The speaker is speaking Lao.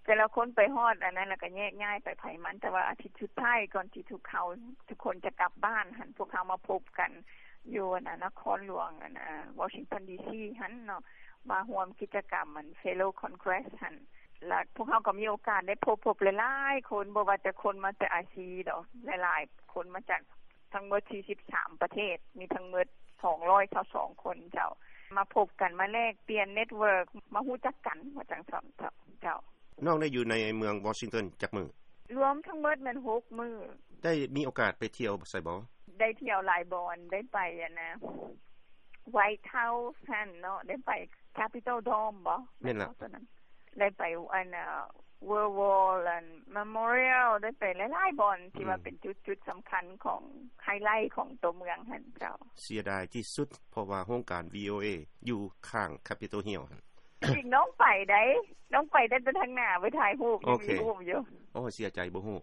ແຕ່ລະຄົນໄປຮອດອັນນັ້ນ ແລ້ວກໍແຍກຍ້າຍໄປໃຜມັນ ແຕ່ວ່າອາທິດສຸດທ້າຍກ່ອນທີ່ທຸກເຮົາ ທຸກຄົນຈະກັບບ້ານຫັ້ນ ພວກເຮົາມາພົບກັນຢູ່ອັນນະ ນະຄອນຫຼວງອັນນະ ວໍຊິງຕັນ ດີຊີ ຫັ້ນເນາະ ມາຮ່ວມກິດຈະກຳອັນ Fellow Congress ຫັ້ນ ແລ້ວພວກເຮົາກໍມີໂອກາດໄດ້ພົບ ພົບຫຼາຍໆຄົນ ບໍ່ວ່າແຕ່ຄົນມາແຕ່ອາຊີດອກ ຫຼາຍໆຄົນມາຈາກທັງໝົດສີ່ສິບສາມປະເທດ ມີທັງໝົດສອງຮ້ອຍຊາວສອງຄົນເຈົ້າ ມາພົບກັນ ມາແລກປ່ຽນ network ມາຮູ້ຈັກກັນ ວ່າຈັ່ງຊັ້ນເຈົ້າ. ນ້ອງໄດ້ຢູ່ໃນເມືອງວໍຊິງຕັນຈັກມື້? ລວມທັງໝົດແມ່ນຫົກມື້. ໄດ້ມີໂອກາດໄປທ່ຽວໃສບໍ່? ໄດ້ທ່ຽວຫຼາຍບ່ອນ ໄດ້ໄປອັນນະ White House ຫັ້ນເນາະ ໄດ້ໄປ Capitol Dome ບໍ່? ແມ່ນລະ ໄດ້ໄປອັນນະ World War ອັນ Memorial ໄດ້ໄປຫຼາຍໆບ່ອນທີ່ວ່າເປັນຈຸດໆສຳຄັນຂອງ highlight ຂອງຕົວເມືອງຫັ້ນເຈົ້າ. ເສຍດາຍທີ່ສຸດ ເພາະວ່າໂຮງການ VOA ຢູ່ຂ້າງ Capitol Hill ຫັ້ນ. ຈິງນ້ອງໄປໄດ໋ ນ້ອງໄປຕັ້ງແຕ່ທາງໜ້າໄປຖ່າຍຮູບ ຍັງມີຮູບຢູ່. ໂອ້ ເສຍໃຈ ບໍ່ຮູ້